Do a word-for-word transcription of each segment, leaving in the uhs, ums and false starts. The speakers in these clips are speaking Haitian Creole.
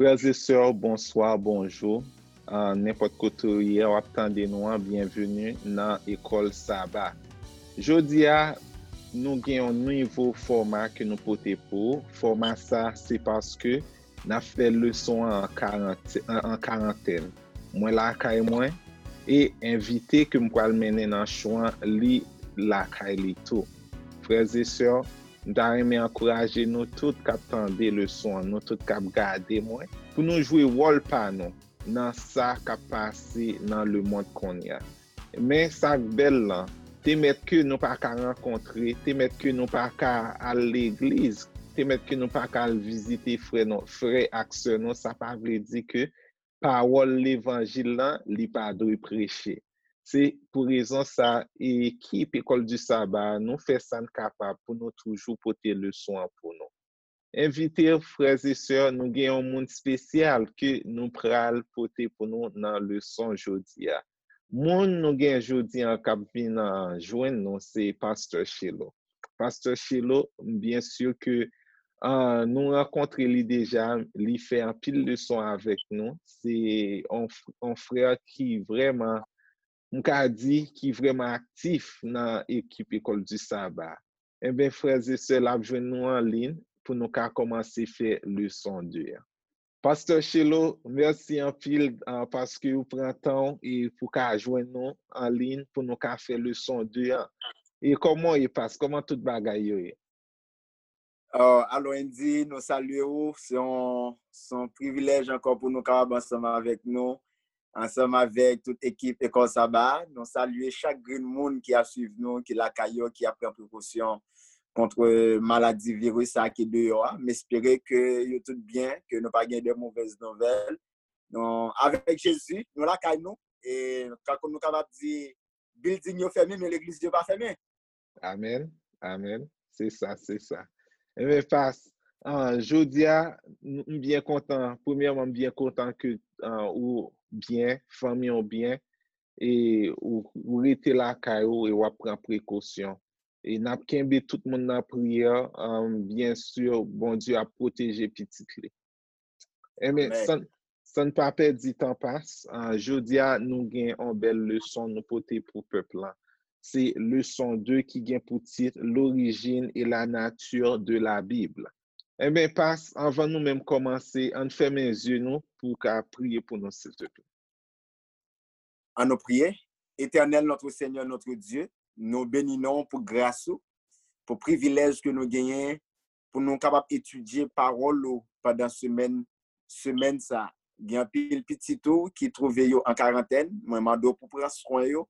Frè e sè, bonswa, bonjou. Ah, nenpòt kote w ye, w ap tande nou an, byenveni nan Ekòl Saba. Jodi a, nou gen yon nouvo fòma ke nou pote pou ou. Fòma sa, se paske n ap fè leson an an karant-, an, an karantèn. Mwen lakay mwen, e envite ke m pral mennen nan cho an, li lakay li tou. Frè e sè, m ta renmen ankouraje nou tout k ap tande leson an, nou tout k ap gade mwen, pou nou jwe wòl pa nou nan sa k ap pase nan lemonn kounye a. Men sa k bèl lan, te mèt ke nou pa ka rankontre, te mèt ke nou pa ka al legliz, te mèt ke nou pa ka al vizite frè nou, frè ak sè nou, sa pa vle di ke pawòl levanjil lan, li pa dwe preche. Se pou rezon sa, ekip Ekòl di Saba, nou fè sa n kapab pou nou toujou pote leson an pou nou. Envite frè e sè, nou gen yon moun espesyal ke nou pral pote pou nou nan leson jodi a. Moun nou gen jodi an k ap vin, ah, jwenn nou, se Pastè Chelo. Pastè Chelo, m byen si ke, ah, nou rankontre li deja, li fè anpil leson avèk nou. Se yon f-, yon frè ki vrèman, m ka di, ki vrèman aktif nan ekip Ekòl di Saba. Enben, frè e sè, l ap jwenn nou an liy pou nou ka kòmanse fè leson de an. Pastè Chelo, mèsi anpil, ah, paske ou pran tan w e pou ka jwenn nou an liy pou nou ka fè leson de an. E kòman w ye, Pas? Kòman tout bagay yo ye? Oh, alo, Andy, nou salye ou. Se yon, se yon privilèj ankò pou nou kapab ansanm avèk nou, ansanm avèk tout ekip Ekòl Saba a. Nou salye chak grenn moun ki ap swiv nou, ki lakay yo, ki ap pran prekosyon kont maladi viris sa ki deyò a. M espere ke yo tout byen, ke nou pa gen de movèz nouvèl. Nou, avèk Jezi, nou lakay nou. E, tankou nou kapab di, bilding yo fèmen, men legliz yo pa fèmen. Amèn, amèn. Se sa, se sa. Enben, Pas, ah, jodi a, m m byen kontan. Premyèman, m byen kontan ke, ah, ou byen, fanmi w byen, e ou, ou rete lakay ou e w ap pran prekosyon. E n ap kenbe tout moun nan priyè, ah, byen si, Bondye ap pwoteje pitit li. Enben, Amèn. San, san n pa pèdi tan, Pas, ah, jodi a, nou gen yon bèl leson nou pote pou pèp lan. Se leson de ki gen pou tit L'origine et la nature de la Bible. Enben, Pas, anvan nou menm kòmanse, ann fèmen zye nou pou w ka priye pou nou, silteplè. Ann nou priye. Éternel, notre Seigneur, notre Dieu, nou beni non w pou gras ou, pou privilèj ke nou genyen pou nou kapab etidye pawòl ou pandan semèn, semèn sa. Gen anpil pitit ou ki twouve yo an karantèn. Mwen mande w pou pran swen yo,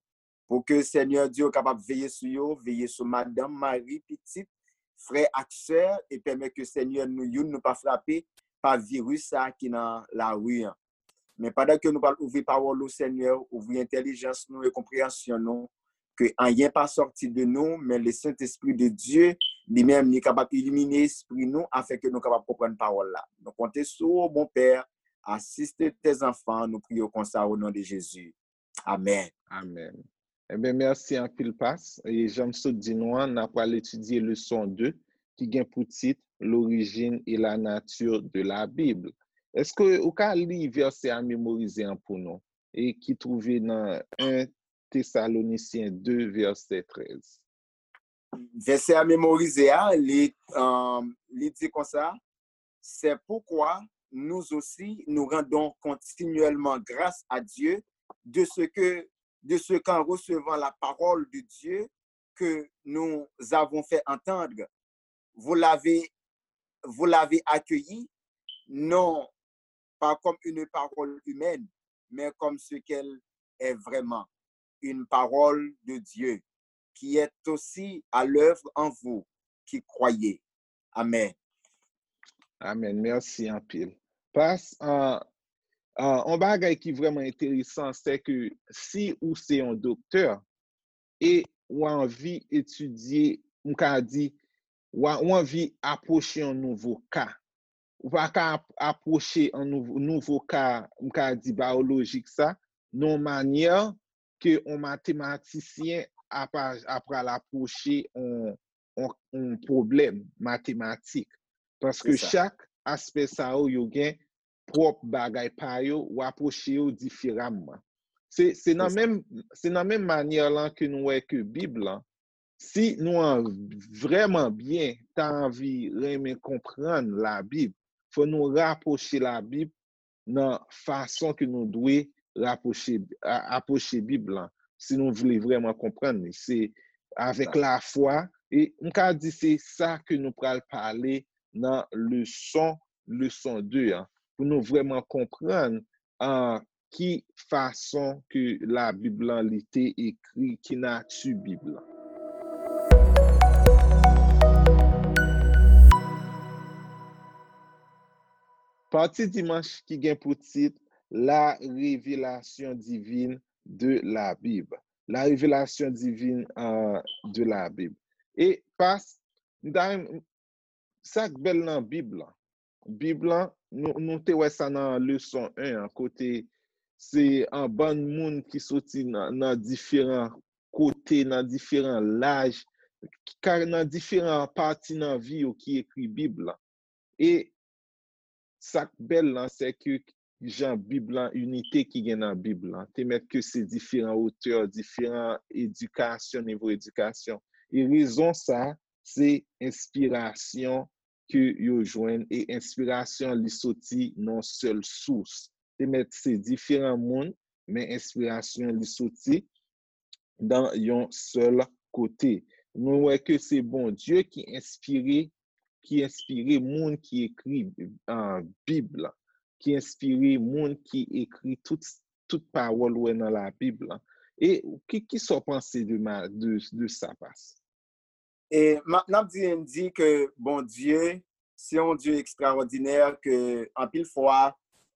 pou ke Senyè Dye ou kapab veye sou yo, veye sou madanm, mari, pitit, frè ak sè, e pèmèt ke Senyè nou youn nou pa frape pa viris sa ki nan lari an. Men pandan ke nou pral ouvri pawòl ou, Senyè, ouvri entèlijans nou e konpreyansyon nou, ke anyen pa sòti de nou, men Lesentespri de Dye, li menm, li kapab ilimine espri nou, afin ke nou kapab konprann pawòl la. Nou konte sou ou, Bon Pè, asiste tes enfants, nou priye konsa o non de Jezi. Amèn. Amèn. Enben, mèsi anpil, Pas. E jan m sot di nou an, n ap pral etidye leson de, ki gen pou tit L'origine et la nature de la Bible. Èske ou ka li vèsè a memorize an pou nou, e ki twouve nan en Tesalonisyen de, vèsè trèz? Vèsè a memorize a, li, euh, li di konsa, C'est pourquoi nous aussi, nous rendons continuellement grâce à Dieu de ce que, de ce qu'en recevant la parole de Dieu que nous avons fait entendre, vous l'avez, vous l'avez accueillie, non pas comme une parole humaine, mais comme ce qu'elle est vraiment, une parole de Dieu, qui est aussi à l'œuvre en vous qui croyez. Amèn. Amèn. Mèsi anpil. Pas, euh, euh, yon bagay ki vrèman enteresan, se ke si ou se yon doktè e ou anvi etidye, m ka di, ou a- ou anvi apwoche yon nouvo ka. Ou pa ka ap- apwoche yon nouvo, nouvo ka, m ka di, bayolojik sa, nan yon manyè ke yon matematisyen ap a- ap pral apwoche yon, yon, yon pwoblèm matematik. Paske Se sa. Chak aspè sa yo, yo gen pwòp bagay pa yo, rapwoche yo diferaman. Se, se nan menm, se nan menm manyè lan ke nou wè ke Bib lan, si nou an, vrèman byen ta anvi renmen konprann Labib, fò nou rapwoche Labib nan fason ke nou dwe rapwoche, a- apwoche Bib lan, si nou vle vrèman konprann li. Se avèk lafwa, e m ka di se sa ke nou pral pale nan leson, leson de an, pou nou vrèman konprann an ki fason ke Labib lan li te ekri, ki nati Bib lan. Pati dimanch ki gen pou tit La révélation divine de la Bible. La révélation divine euh, de la Bible. E pas, m ta renm- sa k bèl nan Bib lan. Bib lan, nou, nou te wè sa nan leson en an, kote se an bann moun ki soti nan, nan diferan kote, nan diferan laj, ka- nan diferan pati nan vi yo ki ekri Bib lan. E sa k bèl lan, se ke jan Bib lan, inite ki gen nan Bib lan, te mèt ke se diferan otè, diferan edikasyon, nivo edikasyon. E rezon sa, se enspirasyon ke yo jwenn, e enspirasyon li soti nan sèl sous. Te mèt se diferan moun, men enspirasyon li soti nan yon sèl kote. Nou wè ke se Bondye ki enspire, ki enspire moun ki ekri uh, Bib la, ki enspire moun ki ekri tout, tout pawòl ou wè nan Labib la. E ki, ki sa w panse de, ma- de, de sa, pas? E m ap- n ap di, n di ke Bondye se yon Dye ekstraòdinè, ke anpil fwa,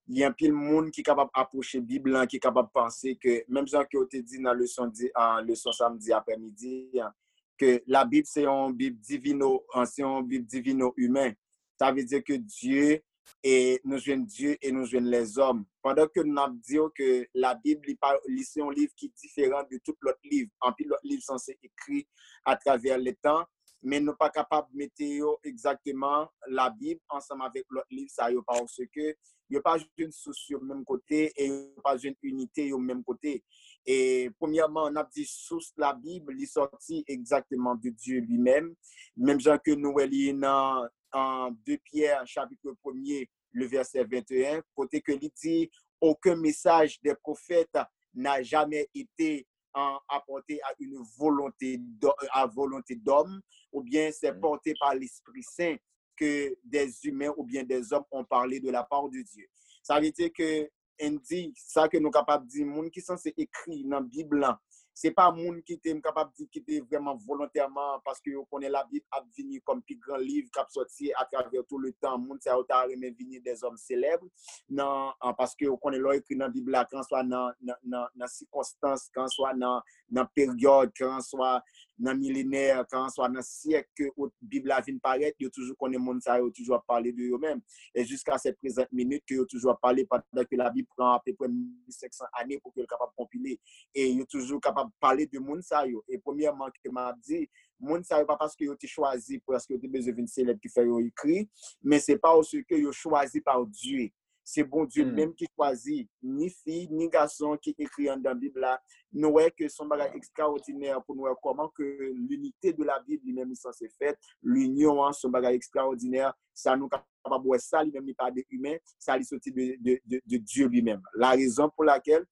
gen anpil moun ki kapab apwoche Bib lan, ki kapab panse ke, menm jan ke w te di nan leson di, an, leson samdi aprèmidi an, ke Labib se yon Bib divino, an, se yon Bib divino imen. Sa vle di ke Dye, e nou jwenn Dye e nou jwenn lèzòm. Pandan ke n ap di w ke Labib, li, pa, li se yon liv ki diferan de tout lòt liv. Anpil lòt liv sanse ekri atravè letan, men nou pa kapab mete yo egzakteman, Labib, ansanm avèk lòt liv sa yo, paske yo pa jwenn sous yo menm kote e yo pa jwenn inite yo menm kote. E premyèman, n ap di sous Labib, li sòti egzakteman de Dye li menm. Menm jan ke nou wè li nan an de Pyè, chapit premye, le vèsè venteyen, kote ke li di, aucun message des prophètes n'a jamais été en, apporté à une volonté d'ho- à volonté d'homme, ou bien c'est porté par l'Esprit Saint que des humains ou bien des hommes ont parlé de la part de Dieu. Sa vle di ke, Andy, sa ke nou kapab di, moun ki sanse ekri nan Bib lan, se pa moun ki te, m kapab di, ki te vrèman volontèman, paske yo konnen Labib ap vini kòm pi gran liv k ap sòti atravè tout le tan. Moun sa yo ta renmen vini dèzòm selèb, nan, an, paske yo konnen lè w ekri nan Bib la, kanswa nan, nan, nan, nan sikonstans, kanswa nan, nan peryòd, kanswa nan milenè, kanswa nan syèk ke ot- Bib la vin parèt, yo toujou konnen moun sa yo toujou ap pale de yo menm. E jiska sèt prezant minit ke yo toujou ap pale pandan ke Labib pran apeprè mil senk san ane pou ke l kapab konpile. E yo toujou kapab pale de moun sa yo. E premyèman ke m ap di, moun sa yo pa paske yo te chwazi, paske yo te bezwen vin selèb ki fè yo ekri, men se paske yo chwazi pa Dye. Se Bondye menm ki chwazi, ni fi, ni gason ki ekri anndan Bib la. Nou wè ke se yon bagay ekstraòdinè pou nou wè kòman ke linite de la Bib li menm li sanse fèt, linyon an se yon bagay ekstraòdinè. Sa nou kapab wè sa li menm li pa de imen, sa li soti de, de, de, de Dye li menm. La rezon pou lakèl,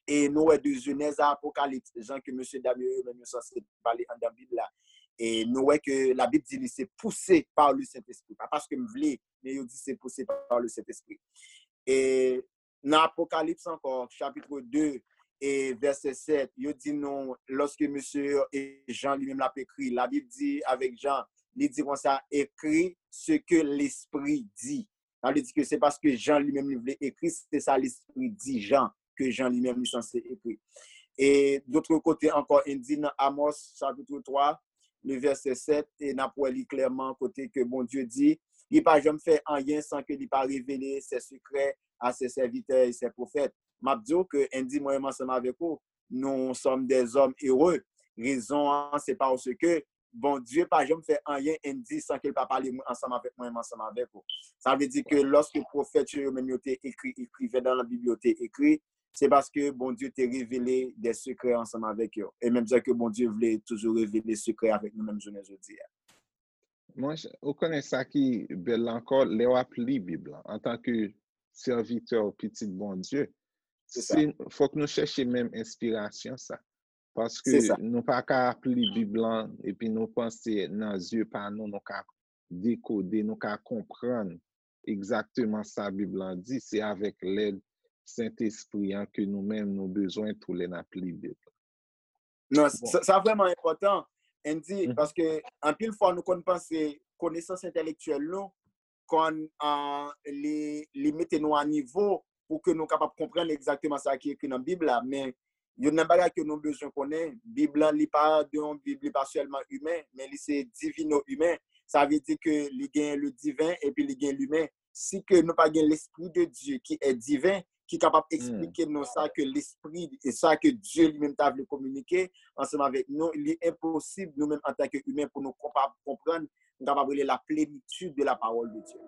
e nou wè de Jenèz a Apokalips, jan ke mesye dam yo, yo menm yo sanse pale anndan Bib la. E nou wè ke Labib di li se poussé par le Saint-Esprit. Pa paske m vle, men yo di se poussé par le Saint-Esprit. E nan Apokalips ankò, chapit de e vèsè sèt, yo di nou, lòske mesye e Jan li menm l ap ekri, Labib di avèk Jan, li di konsa, écris ce que l'Esprit dit. Sa vle di ke se paske Jan li menm li vle ekri, se sa Lespri di Jan, ke Jan li menm li sanse ekri. E dotre kote ankò, Andy, nan Amos, chapit twa, le vèsè sèt, e n ap wè li klèman kote ke Bondye di, li pa janm fè anyen san ke li pa revele ses secrets à ses serviteurs et ses prophètes. M ap di w ke, Andy, mwen menm ansanm avèk ou, nous sommes des hommes heureux. Rezon an, se paske Bondye pa janm fè anyen Andy san ke l pa pale mwen ansanm avèk mwen, menm ansanm avèk ou. Sa vle di ke lòske pwofèt yo, yo menm yo te ekri, ekriven nan Bib yo te ekri, se paske Bondye te revele de sekrè ansanm avèk yo. E menm jan ke Bondye vle toujou revele sekrè avèk nou menm jounen jodi a. Mwen, ou konnen sa ki bèl la ankò, lè w ap li Bib lan, antanke sèvitè ou pitit Bondye, se fòk nou chèche menm enspirasyon sa. Paske nou pa ka ap li Bib lan epi nou panse nan zye pa nou, nou ka dekode, nou ka konprann egzakteman sa Bib lan di. Se avèk lèd Sentespri an ke nou menm nou bezwen tou lè n ap li Bib lan. Non, sa vrèman enpòtan, Andy, paske anpil fwa nou konn panse konesans entèlektyèl nou konn uh, li, li mete nou a nivo pou ke nou kapab konprann egzakteman sa ki ekri nan Bib la. Men youn nan bagay ke nou bezwen konnen, Bib lan li pa de yon Bib, li pa sèlman imen, men li se divino imen. Sa vle di ke li gen le diven epi li gen limen. Si ke nou pa gen l'esprit de Dieu qui est divin, ki kapab eksplike nou sa ke lespri e sa ke Dye li menm ta vle kominike ansanm avèk nou, li enposib nou menm antanke imen pou nou kapab konprann, nou kapab rele la plenitude de la parole de Dieu.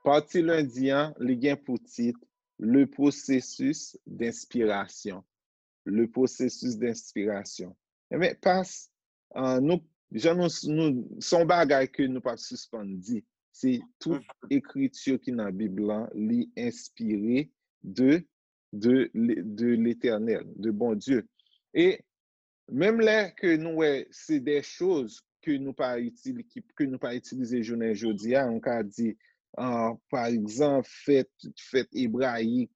Pati lendi an, li gen pou tit Le processus d'inspiration. Le processus d'inspiration. Enben, pas, uh, nou, jan nou, nou, se yon bagay ke nou p ap sispann di. Se tout ekriti ki nan Bib lan, li enspire de, de, de Letènèl, de Bondye. E menm lè ke nou wè se de choz ke nou pa itilize, ke nou pa itilize jounen jodi a, nou ka di, uh, pa egzanp, fèt, fèt ebrayik,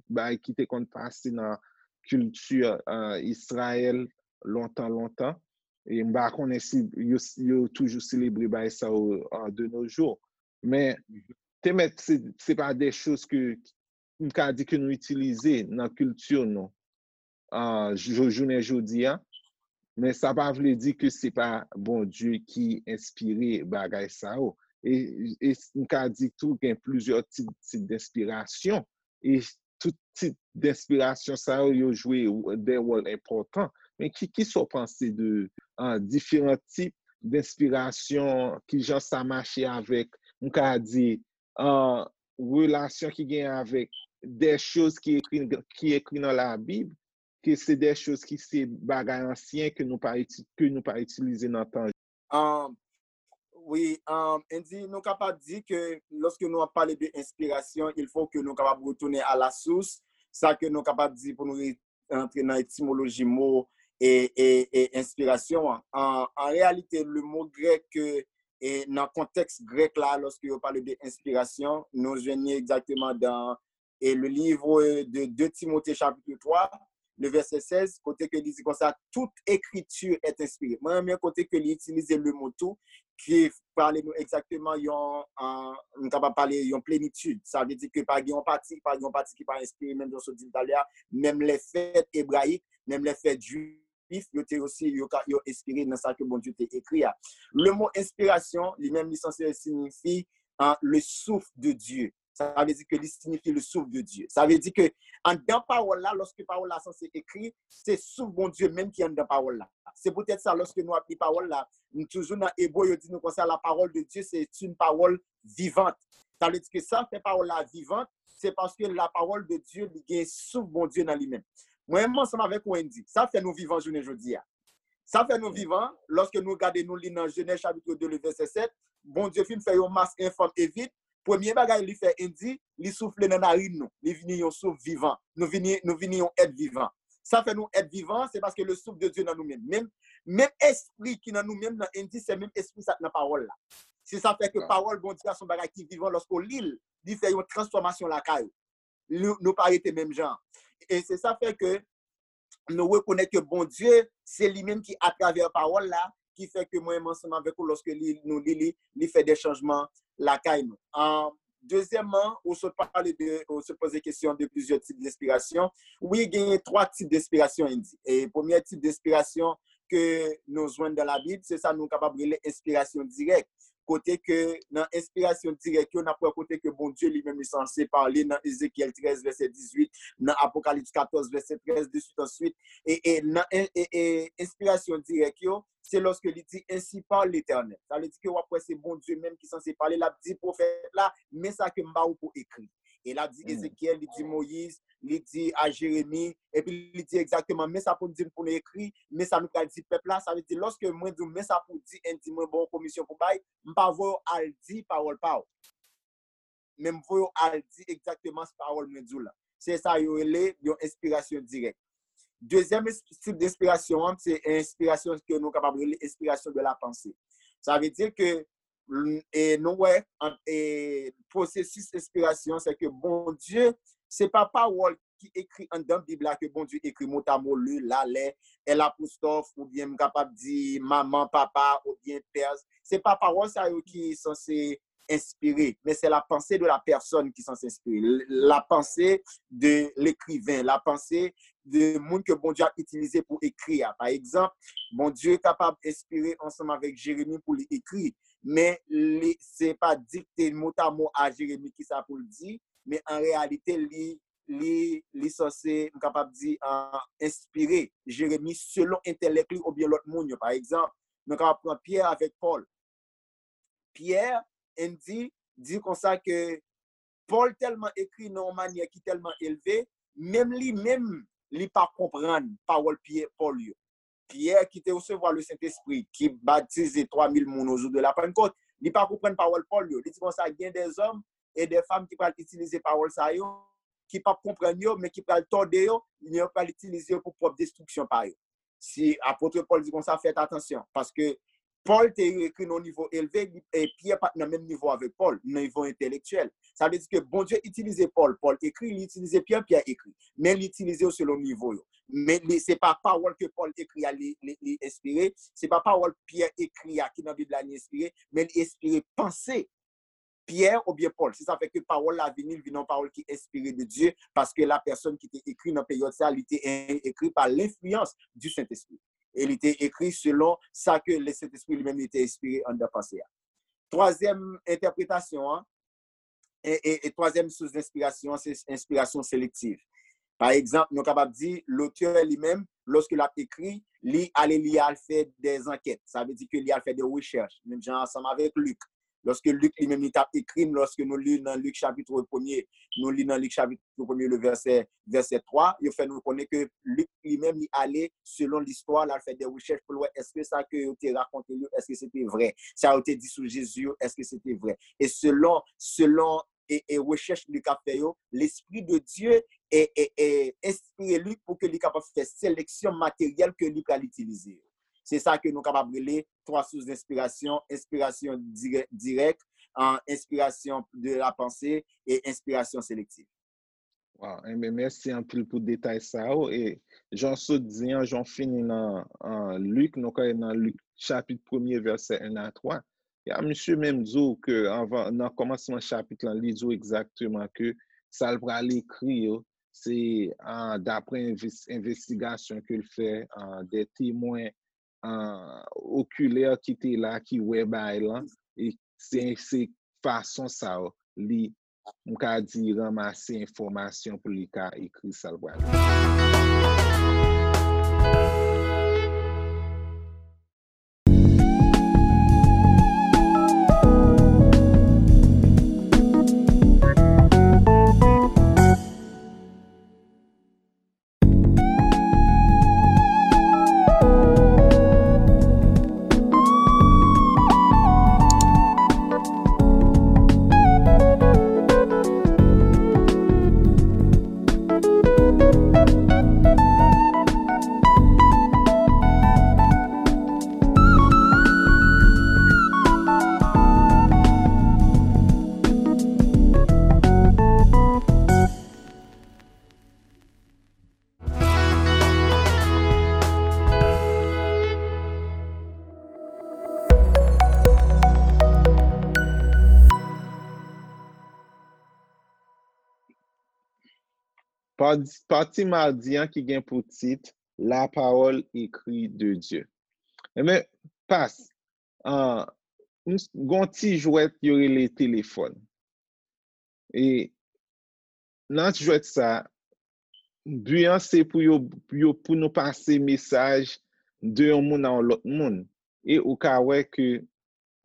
bagay ki te konn pase nan kilti uh, Izrayèl lontan, lontan. E m pa konnen si yo, yo toujou selebre bagay sa yo uh, de nos jours. Men, te mèt, se, se pa de choz ke m ka di ke nou itilize nan kilti nou uh, jounen jodi a. Men sa pa vle di ke se pa Bondye ki enspire bagay sa yo. E, e m ka di tou gen plizyè tit, tit d'inspirasyon. E tout tit d'inspirasyon sa yo, yo jwe de wòl enpòtan. Men ki, ki sa w panse de uh, diferan tip d'inspirasyon, ki jan sa mache avèk, m ka di, uh, relasyon ki gen avèk de choz ki ekri, ki ekri nan Labib, ke se de choz ki se bagay ansyen ke nou pa, ke nou pa itilize nan tan. Um, wi, um, Andy, nou kapab di ke lòske nou ap pale de enspirasyon, il faut que nou kapab retounen à la source, sa ke nou kapab di pou nou antre nan etimoloji mo e, e, e enspirasyon an. An, an reyalite, le mo grèk ke e nan kontèks grèk la, lòske yo pale de enspirasyon, nou jwenn li egzakteman dan e le livre de deux Timothée chapitre trois, le verset seize, kote ke li di konsa, toute écriture est inspirée. Mwen renmen kote ke li itilize le mo tout, ki pale nou egzakteman yon, uh, nou kapab pale yon plenitid. Sa vle di ke pa gen yon pati, pa gen yon pati ki pa enspire, menm jan sot di talè a, menm lè fèt ebrayik, menm lè fèt jwif, yo te osi, yo, yo enspire nan sa ke Bondye te ekri a. Le mo enspirasyon, li menm, li sanse siyifi uh, le souffle de Dieu. Sa vle di ke li siyifi le souffle de Dieu. Sa vle di ke anndan pawòl la, lòske pawòl la sanse ekri, se souf Bondye menm ki anndan pawòl la. Se poutèt sa, lòske nou ap li pawòl la, nou toujou nan Ebre, yo di nou konsa, la parole de Dieu, c'est une parole vivante. Sa vle di ke sa fè pawòl la vivant, se paske la parole de Dieu, li gen souf Bondye nan li menm. Mwen menm ansanm avèk ou, Andy, sa fè nou vivan jounen jodi a. Sa fè nou vivan, lòske nou gade, nou li nan Jenèz chapitre deux, le verset sept, Bondye fin fè yon mas enfòm e vid, premye bagay li fè, Andy, li soufle nan narin nou. Li vini yon souf vivan. Nou vini, nou vini yon èt vivan. Sa fè nou èt vivan, se paske le souffle de Dieu nan nou menm. Menm, menm espri ki nan nou menm nan, Andy, se menm espri sa k nan pawòl la. Se sa fè ke pawòl Bondye a se yon bagay ki vivan, lòske w li l, li fè yon transfòmasyon lakay ou. Nou, nou pa rete menm jan. E se sa fè ke nou rekonèt ke Bondye, se li menm ki atravè pawòl la, ki fè ke mwen menm ansanm avèk ou, lòske li, nou li li, li fè de chanjman lakay nou. An, dezyèmman, ou sot pale de, ou sot poze kesyon de plizyè tip denspirasyon. Wi, genyen twa tip denspirasyon, Andy. E premye tip denspirasyon ke nou jwenn dan Labib, se sa nou kapab rele enspirasyon dirèk. kote ke nan enspirasyon dirèk yo, n ap wè kote ke Bondye li menm li sanse pale nan Ezekyèl trèz vèsè dizuit, nan Apokalips katòz vèsè trèz, de suite en suite. E, e nan e, e, e, enspirasyon dirèk yo, se lòske li di, "Ainsi parle l'Éternel." Sa vle di ke w ap wè se Bondye menm ki sanse pale, l ap di pwofèt la, "Men sa ke m ba ou pou ekri." E l ap di Ezekyèl, li di Moyiz, li di a Jeremi, epi li di egzakteman, "Men sa pou n di n pou n ekri, men sa nou pral di pèp la." Sa vle di, lòske mwen di w, "Men sa pou w di," e di mwen ba w yon komisyon pou bay, m pa voye w al di pawòl pa w. Men m voye w al di egzakteman pawòl mwen di w la. Se sa yo rele yon enspirasyon dirèk. Dezyèm ins- tip de enspirasyon an, se enspirasyon ke nou kapab rele enspirasyon de la panse. Sa vle di ke, e nou wè, an- e pwosesis enspirasyon, se ke Bondye, se pa pawòl ki ekri anndan Bib la ke Bondye ekri motamo, le, la, lè, L apostwòf, oubyen m kapab di manman, papa, oubyen pè. Se pa pawòl sa yo ki sanse enspire, men se la panse de la pèsòn ki sanse enspire. La panse de lekriven, la panse de moun ke Bondye ap itilize pou ekri a. Pa egzanp, Bondye kapab enspire ansanm avèk Jeremi pou li ekri, men li, se pa dikte motamo a Jeremi kisa pou l di, men an reyalite, li, li, li sanse, m kapab di, ah, enspire Jeremi selon entèlèk li oubyen lòt moun yo. Pa egzanp, nou kapab pran Pyè avèk Pòl. Pyè, Andy, di konsa ke Pòl tèlman ekri nan yon manyè ki tèlman elve, menm li menm, li pa konprann pawòl Pyè, Pòl yo. Pyè ki te resevwa le Sentespri, ki batize twa mil moun o jou de la Pannkòt, li pa konprann pawòl Pòl yo. Li di konsa, gen dèzòm e dèfanm ki pral itilize pawòl sa yo, ki p ap konprann yo, men ki pral tòde yo, men yo pral itilize yo pou pwòp destriksyon pa yo. Si apot Pòl di konsa, fèt atansyon, paske Pòl te ekri nan nivo elve, li- e Pyè pa t nan menm nivo avèk Pòl, nan nivo entèlektyèl. Sa vle di ke Bondye itilize Pòl, Pòl ekri, li itilize Pyè, Pyè ekri. Men li itilize yo selon nivo yo. Men li, se pa pawòl ke Pòl ekri a li, li, li enspire, se pa pawòl Pyè ekri a ki nan Bib la li enspire, men li enspire panse Pyè oubyen Pòl. Se sa fè ke pawòl la vini, li vin yon pawòl ki enspire de Dye, paske la pèsòn ki te ekri nan peryòd sa, li te en- ekri pa lenfliyans du Sentespri. E li te ekri selon sa ke le Sentespri li menm li te enspire anndan panse a. Twazyèm entèpretasyon an, e, e, e twazyèm sous denspirasyon an, se enspirasyon selektiv. Pa egzanp, nou kapab di, lotè li menm, lòske l ap ekri, li ale, li al fè dè ankèt. Sa vle di ke li al fè dè rechèch, menm jan ansanm avèk Lik. Lòske Lik li menm li t ap ekri, lòske nou li nan Lik chapit premye, nou li nan Lik chapit premye, le vèsè, vèsè twa, yo fè nou konnen ke Lik li menm li ale selon listwa, l al fè dè rechèch pou l wè èske sa ke yo te rakonte l yo, èske se te vrè. Sa yo te di sou Jezi yo, èske se te vrè. E selon, selon e, e rechèch li ka fè yo, Lespri de Dye e, e, e enspire li pou ke li kapab fè seleksyon materyèl ke li pral itilize yo. Se sa ke nou kapab rele twa sous denspirasyon, enspirasyon dirè- dirèk, an enspirasyon de la panse e enspirasyon selektif. Waw, enben, mèsi anpil pou detay sa yo. E jan w sot di an, jan w fini nan, an, Lik, nou ka nan Lik chapit premye, vèsè en a twa. Ya, misye menm di w ke anvan, nan kòmansman chapit lan, li di w egzakteman ke sa l pral ekri yo, se, ah, daprè enves- envestigasyon ke l fè, ah, dè temwen, ah, okilè ki te la, ki wè bagay lan, e se, se fason sa yo, li, m ka di, ranmase enfòmasyon pou li ka ekri sa l pral ekri. Pati, pati madi an ki gen pou tit La parole écrite de Dieu. Enben, pas, an, m s- gon ti jwèt yo rele telefòn. E nan jwèt sa, bi an se pou yo, yo pou nou pase mesaj de yon moun a yon lòt moun. E ou ka wè ke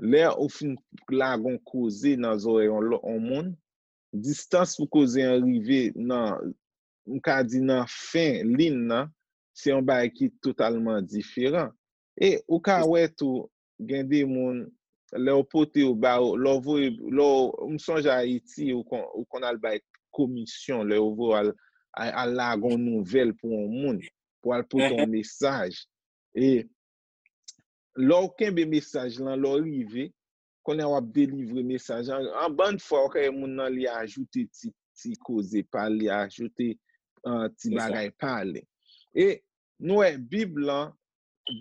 lè ou fin lage yon koze nan zòrèy yon lòt yon moun, distans pou koze an rive nan, m ka di nan fen liy nan, se yon bagay ki totalman diferan. E ou ka wè tou, gen de moun, lè w pote yo ba yo, lè w voye, lè w, m sonje Ayiti, ou kon, ou konn al bay komisyon, lè yo voye al, al, al lage yon nouvèl pou yon moun, pou al pote yon mesaj. E lè w kenbe mesaj lan, lè w rive, kounye a w ap delivre mesaj lan. An bann fwa, w ka wè moun nan li ajoute ti, ti koze pa l, li ajoute uh, ti bagay pa l. E nou wè Bib lan,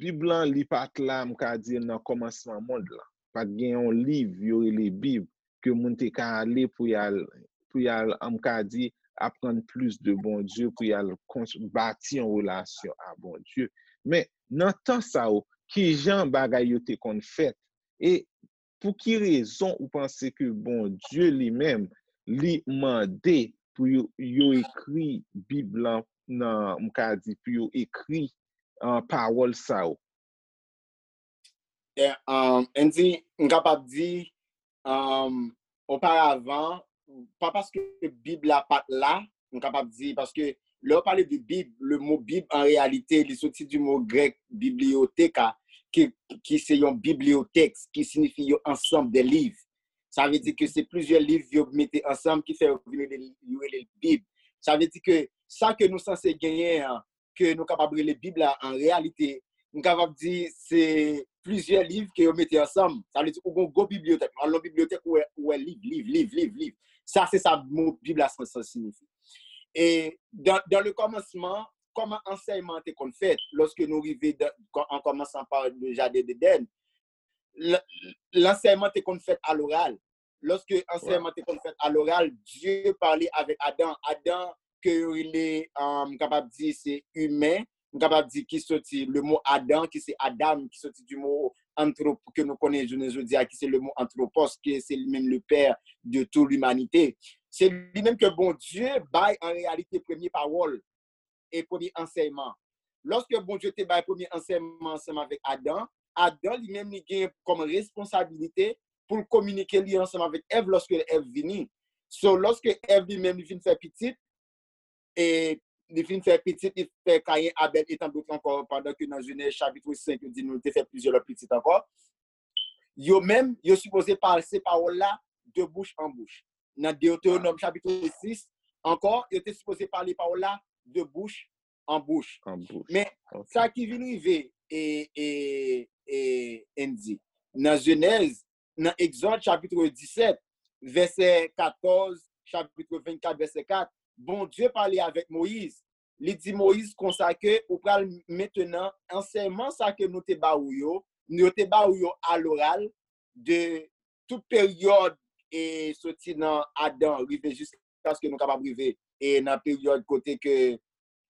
Bib lan li pa t la, m ka di nan kòmansman mond lan. Pa t gen yon liv yo rele Bib ke moun te ka ale pou y al, pou y al, m ka di, aprann plis de Bondye, pou y al bati yon relasyon a Bondye. Men nan tan sa yo, ki jan bagay yo te konn fèt? E pou ki rezon ou panse ke Bondye li menm, li mande pou yo, yo ekri Bib lan nan, m ka di, pou yo ekri uh, pawòl sa yo? Yeah, um, Andy, m kapab di, um, oparavan, pa paske Bib la pa t la, m kapab di, paske lè w pale de Bib, le mo Bib, an reyalite, li soti di mo grèk biblioteka, ki, ki se yon bibliyotèks, ki siyifi yon ansanm de liv. Sa vle di ke se plizyè liv yo mete ansanm ki fè yo vin rele, yo rele l Bib. Sa vle di ke sa ke nou sanse genyen an, ke nou kapab rele Bib la an reyalite, m kapab di se plizyè liv ke yo mete ansanm. Sa vle di ou gon gwo bibliyotèk. Al nan bibliyotèk ou wè, ou wè liv, liv, liv, liv, liv. Sa se sa mo Bib la san, san siyifi. E dans, dans le commencement, kòman ansèyman an te konn fèt lòske nou rive dan, an kòmansan pa le jaden d'Eden, l- lansèyman te konn fèt aloral. Lòske ansèyman te konn fèt aloral, Dye pale avèk Adan. Adan ke yo rele, um, m kapab di se imen, m kapab di ki soti le mo Adan, ki se Adam, ki soti di mo antrop ke nou konnen jounen jodi a, ki se le mo anthropos, ke se li menm le père de toute l'humanité. Se li menm ke Bondye bay an reyalite premye pawòl e premye ansèyman. Lòske Bondye te bay premye ansèyman ansanm avèk Adan, Adan li menm li gen kòm responsabilite pou l kominike li ansanm avèk Èv lòske Èv vini. So, lòske Èv li menm li fin fè pitit, e li fin fè pitit, li fè Kayen, Abèl, e tan dòt ankò, pandan ke nan Jenèz chapit senk, yo di nou li te fè plizyè lòt pitit ankò. Yo menm, yo sipoze pase pawòl la de bouch an bouch. Nan Deutéronome chapit sis, ankò, yo te sipoze pale pawòl la de bouch an bouch. An bouch. Men, Ok. Sa ki vin rive, e, e, e, Andy, nan Jenèz, nan Egzòd chapit disèt, vèsè katòz, chapit vennkat, vèsè kat, Bondye pale avèk Moyiz. Li di Moyiz konsa ke ou pral mentenan ansèyman sa ke nou te ba ou yo, nou te ba ou yo aloral de tout peryòd e soti nan Adan rive jiskaske nou kapab rive e nan peryòd kote ke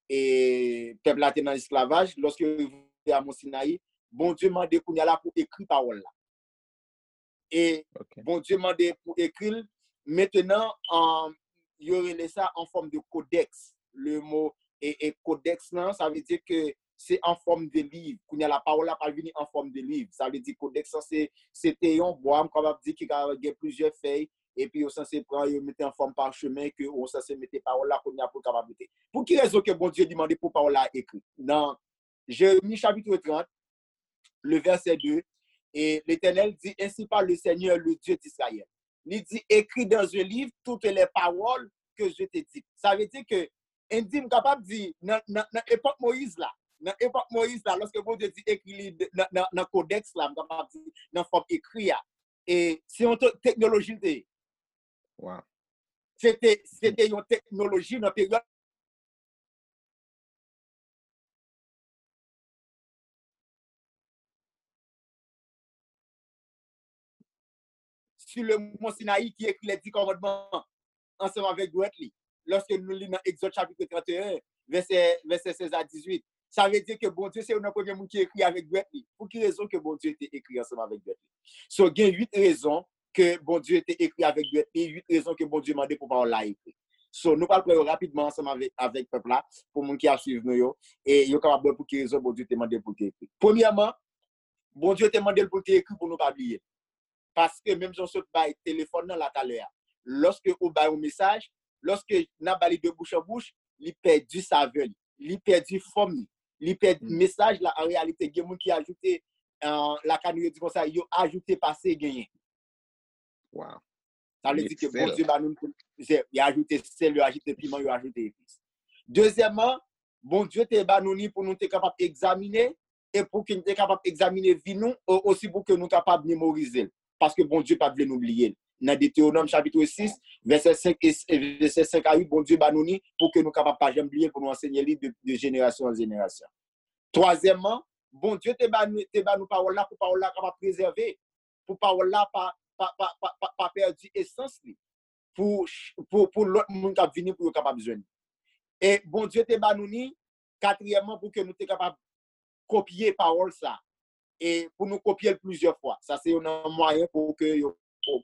e pèp la te nan esklavaj, lòske yo rive a Mont Sinayi, Bondye mande kounye a la pou ekri pawòl la. E Ok. Bondye mande pou ekri l. Mentenan, um, yo rele sa an fòm de kodèks. Le mo e, e kodèks lan, sa vle di ke se an fòm de liv. Kounye a la pawòl la pral vini an fòm de liv. Sa vle di kodèks lan se, se te yon bwa, m kapab di ki ka gen plizyè fèy, epi yo sanse pran, yo mete an fòm pachemen, ke ou sanse mete pawòl la kounye a pou l kapab rete. Pou ki rezon ke Bondye li mande pou pawòl la ekri? Nan Jeremi chapit trant, le verset deux, et l'Éternel dit, ainsi parle le Seigneur, le Dieu d'Israël. Li di, écris dans un livre toutes les paroles que je te dis. Sa vle di ke, Andy, m kapab di, nan, nan, nan epòk Moyiz la, nan epòk Moyiz la, lòske Bondye di ekri li de- nan, nan, nan kodèks la, m kapab di, nan fòm ekri a, e se yon te- teknoloji l te ye. Wow. Se te, se te yon teknoloji nan peryòd sur le mont Sinaï ki ekri les dix commandements ansanm avèk dwèt li. Lòske nou li nan Egzòd chapit trant e en, vèsè, vèsè sèz a dizuit. Sa vle di ke Bondye se youn nan premye moun ki ekri avèk dwèt li. Pou ki rezon ke Bondye te ekri ansanm avèk dwèt li? So, gen uit rezon ke Bondye te ekri avèk dwèt li, uit rezon ke Bondye mande pou pawòl la ekri. So, nou pral pran yo rapidman ansanm avèk, avèk pèp la, pou moun ki ap swiv nou yo, e yo kapab wè pou ki rezon Bondye te mande pou l te ekri. Premyèman, Bondye te mande l pou l te ekri pou nou pa bliye l. Paske menm jan w sot bay telefòn nan la talè a, lòske ou bay yon mesaj, lòske n ap ba li de bouch an bouch, li pèdi savè li, li pèdi fòm li, li pèdi mesaj la. An reyalite, gen moun ki ajoute, lakay nou yo di konsa, yo ajoute pase genyen. Wow. Sa vle di ke Bondye ba nou, yo ajoute sèl, yo ajoute piman, yo ajoute epis. Dezyèmman, Bondye te ba nou li pou nou te kapab egzamine, e pou ke nou te kapab egzamine vi nou, osi pou ke nou kapab memorize l. Paske Bondye pa t vle nou bliye l. Nan Detewonòm chapit sis, vèsè senk e vèsè senk a uit, Bondye ba nou li pou ke nou kapab pa janm bliye l, pou nou ansenye li de, de jenerasyon an jenerasyon. Twazyèmman, Bondye te ba nou, te ba nou pawòl la pou pawòl la kapab prezève, pou pawòl la pa, pa, pa, pa, pa, pa pèdi esans li, pou, pou, pou lòt moun k ap vini pou yo kapab jwenn li. E Bondye te ba nou li, katriyèmman, pou ke nou te kapab kopye pawòl sa, e pou nou kopye l plizyè fwa. Sa se youn nan mwayen pou ke yo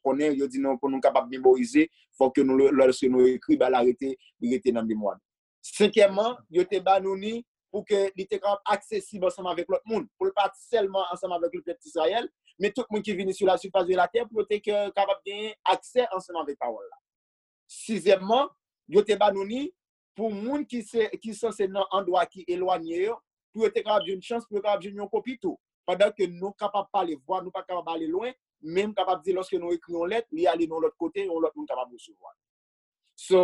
konnen, yo di nou pou nou kapab memorize, fòk ke nou, lòske nou ekri, ba l arete, li rete nan memwa nou. Senkyèmman, yo te ba nou li pou ke li te kapab aksesib ansanm avèk lòt moun, pou l pa t sèlman ansanm avèk le pèp Izrayèl, men tout moun ki vini sou la surface de la terre, pou yo te kapab genyen aksè ansanm avèk pawòl la. Sizyèmman, yo te ba nou li pou moun ki se, ki sanse nan andwa ki elwanye yo, pou yo te kapab jwenn chans, pou yo kapab jwenn yon kopi tou. Pandan ke nou kapab pale vwa, nou pa kapab ale lwen, men m kapab di lòske nou ekri yon lèt, li ale nan yon lòt kote, yon lòt moun kapab resevwa l. So,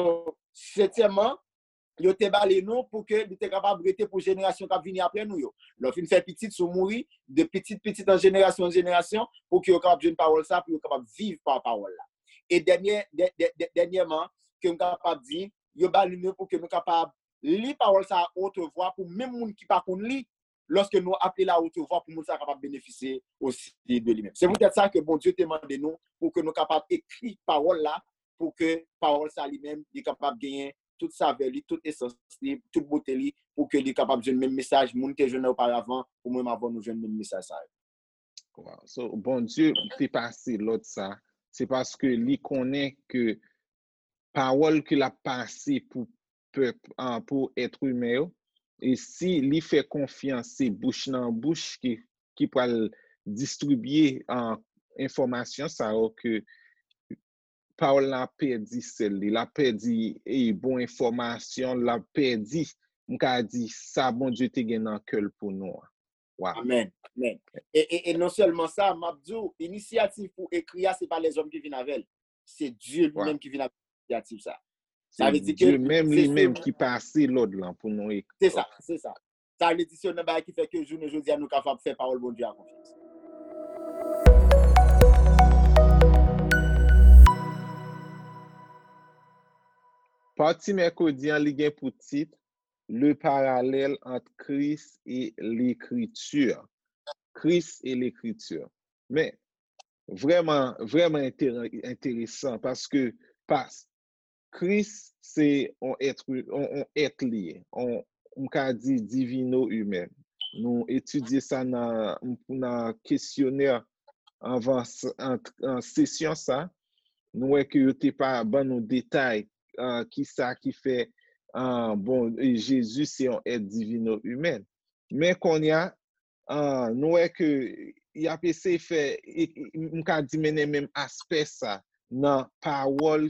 setyèmman, yo te ba li nou pou ke li te kapab rete pou jenerasyon k ap vini apre nou yo. Lè w fin fè pitit, si w mouri, de pitit pitit an jenerasyon an jenerasyon, pou ke yo kapab jwenn pawòl sa, pou yo kapab viv pa pawòl la. E dènyè, dè, dè, dè, dènyèman, ke m kapab di, yo ba li nou pou ke nou kapab li pawòl sa a wotvwa pou menm moun ki pa konn li, lòske nou ap li l a wotvwa pou moun sa a kapab benefisye osi de li menm. Se poutèt sa ke Bondye te mande nou pou ke nou kapab ekri pawòl la, pou ke pawòl sa li menm, li kapab genyen tout savè li, tout esans li, tout bote li, pou ke li kapab jwenn menm mesaj moun te jwenn oparavan, pou menm avan nou jwenn menm mesaj sa yo. Wow. So, Bondye te pase lòd sa, se paske li konnen ke pawòl ke l ap pase pou pèp, ah, pou èt imen yo, e si li fè konfyans, se bouch nan bouch ki, ki pral distribye, ah, enfòmasyon sa yo, ke pawòl la ap pèdi sèl li, l ap pèdi, e, bon enfòmasyon, l ap pèdi, m ka di, sa Bondye te gen nan kè l pou nou an. Wow. Amèn. Amèn. E, e, e non sèlman sa, m ap di w, inisyativ pou ekri a, se pa lèzòm ki vin avè l. Se Dye li menm ki vin avèk inisyativ sa. Sa vle di ke Dye menm li menm ki pase lòd lan pou nou ekri. Se sa, se sa. Sa vle di se youn nan bagay ki fè ke jounen jodi a nou kapab fè pawòl Bondye a konfyans. Pati mèkredi an, li gen pou tit Le parallèle entre Christ et l'Écriture. Christ et l'Écriture. Men, vrèman, vrèman enteresan paske pas, Kris se yon èt, yon, yon èt li ye, yon, m ka di divino imen. Nou etidye sa nan, nan kesyonè anvan s- an, an sesyon sa, nou wè ke yo te pa ban nou detay, ah, kisa ki fè, ah, bon, e Jezi se yon èt divino imen. Men kounye a, ah, nou wè ke y ap eseye fè, e, e, m ka di mennen menm aspè sa nan pawòl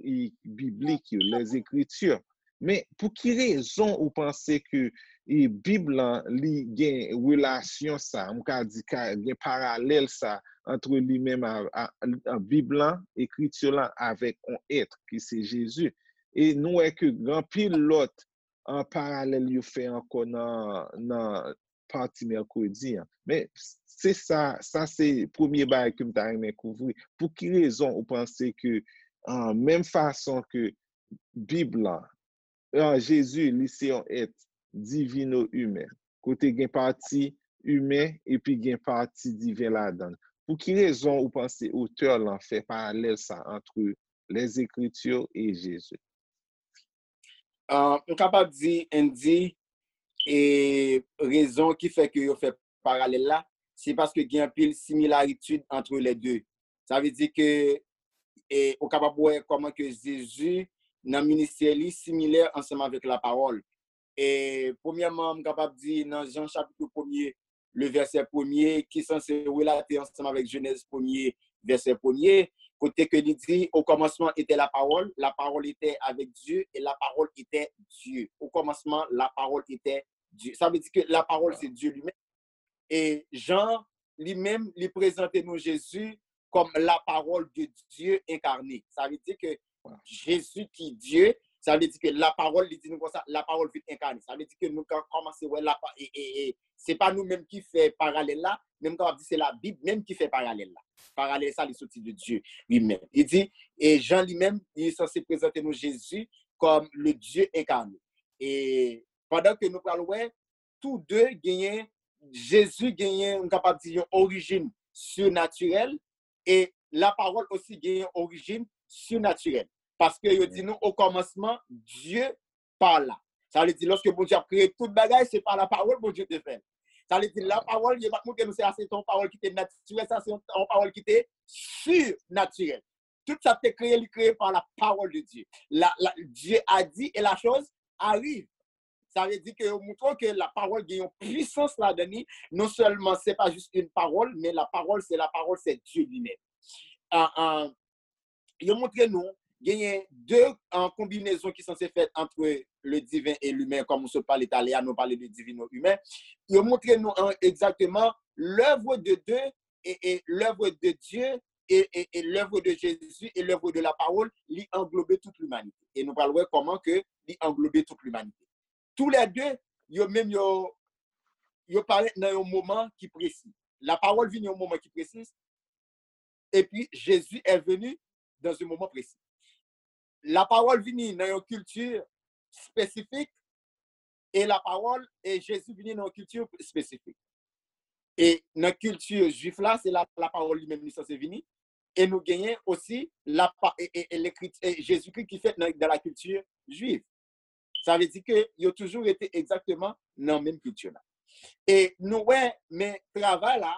e, biblik yo, les Écritures. Men pou ki rezon ou panse ke, e, Bib lan li gen relasyon sa, m ka di ka gen paralèl sa antre li menm a, a, a Bib lan, ekriti lan avèk yon èt ki se Jezi. E nou wè ke gen anpil lòt, an, paralèl yo fè ankò nan, nan pati mèkredi an. Men se sa, sa se premye bagay ke m ta renmen kouvri. Pou ki rezon ou panse ke, ah, menm fason ke Bib lan, ah, Jezi, li se yon èt divino imen, kote gen pati imen epi gen pati diven ladan l. Pou ki rezon ou panse otè lan fè paralèl sa antre les Écritures et Jésus? Ah, m kapab di, Andy, e rezon ki fè ke yo fè paralèl la, se paske gen anpil similaritid antre lè de. Sa vle di ke, e, ou kapab wè kòman ke Jezi, nan ministè li, similè ansanm avèk lapawòl. E, premyèman, m kapab di nan Jan chapit premye, le vèsè premye, ki sanse relate ansanm avèk Jenèz premye, vèsè premye, kote ke li di, au commencement était la parole, la parole était avec Dieu, et la parole était Dieu. Au commencement, la parole était Dieu. Sa vle di ke lapawòl se Dye li menm. E Jan, li menm, li prezante nou Jezi kòm lapawòl de Dye enkane. Sa vle di ke Jezi ki Dye, sa vle di ke lapawòl, li di nou konsa, lapawòl vin enkane. Sa vle di ke nou ka kòmanse wè lapa, e, e, e, se pa nou menm ki fè paralèl la, men m kapab di se Labib menm ki fè paralèl la. Paralèl sa, li soti de Dye li menm. Li di, e Jan li menm, li sanse prezante nou Jezi kòm le Dieu incarné. E pandan ke nou pral wè, tou de genyen, Jezi genyen, m kapab di, yon orijin sinatirèl, e lapawòl osi genyen yon orijin sinatirèl. Paske yo di nou, o kòmansman, Dye parla. Sa vle di, lòske Bondye ap kreye tout bagay, se pa lapawòl Bondye te fè l. Sa vle di, lapawòl, yo pa t montre nou se, a, se yon pawòl ki te natirèl, sa se yon, yon pawòl ki te sinatirèl. Tout sa te kreye, li kreye pa la parole de Dieu. La, la, Dieu a dit et la chose arrive. Sa vle di ke yo montre ke lapawòl gen yon pwisans ladan li. Non sèlman se pa jis yon pawòl, men lapawòl, se lapawòl, se Dye li menm. Ah, ah, yo montre nou, genyen de, ah, konbinezon ki sanse fèt antre le divin e limen, kòm nou sot pale talè a, nou pale de divino imen. Yo montre nou, ah, egzakteman l'œuvre de Dieu et, et l'œuvre de Dieu et, et, et l'œuvre de Jésus et l'œuvre de la parole, li anglobe tout limanite. E nou pral wè kòman ke li anglobe tout limanite. Tou lè de, yo menm yo, yo parèt nan yon moman ki presi. Lapawòl vini yon moman ki presi, epi Jezi est venu dans un moment précis. Lapawòl vini nan yon kilti espesifik, e lapawòl, e Jezi vini nan yon kilti espesifik. E nan kilti jwif la, se la lapawòl li menm li sanse vini. E nou genyen osi lapa, e, e, e lekriti, e Jezikri ki fèt nan, dans la culture juive. Sa vle di ke yo toujou rete egzakteman nan menm kilti la. E nou wè, men travay la,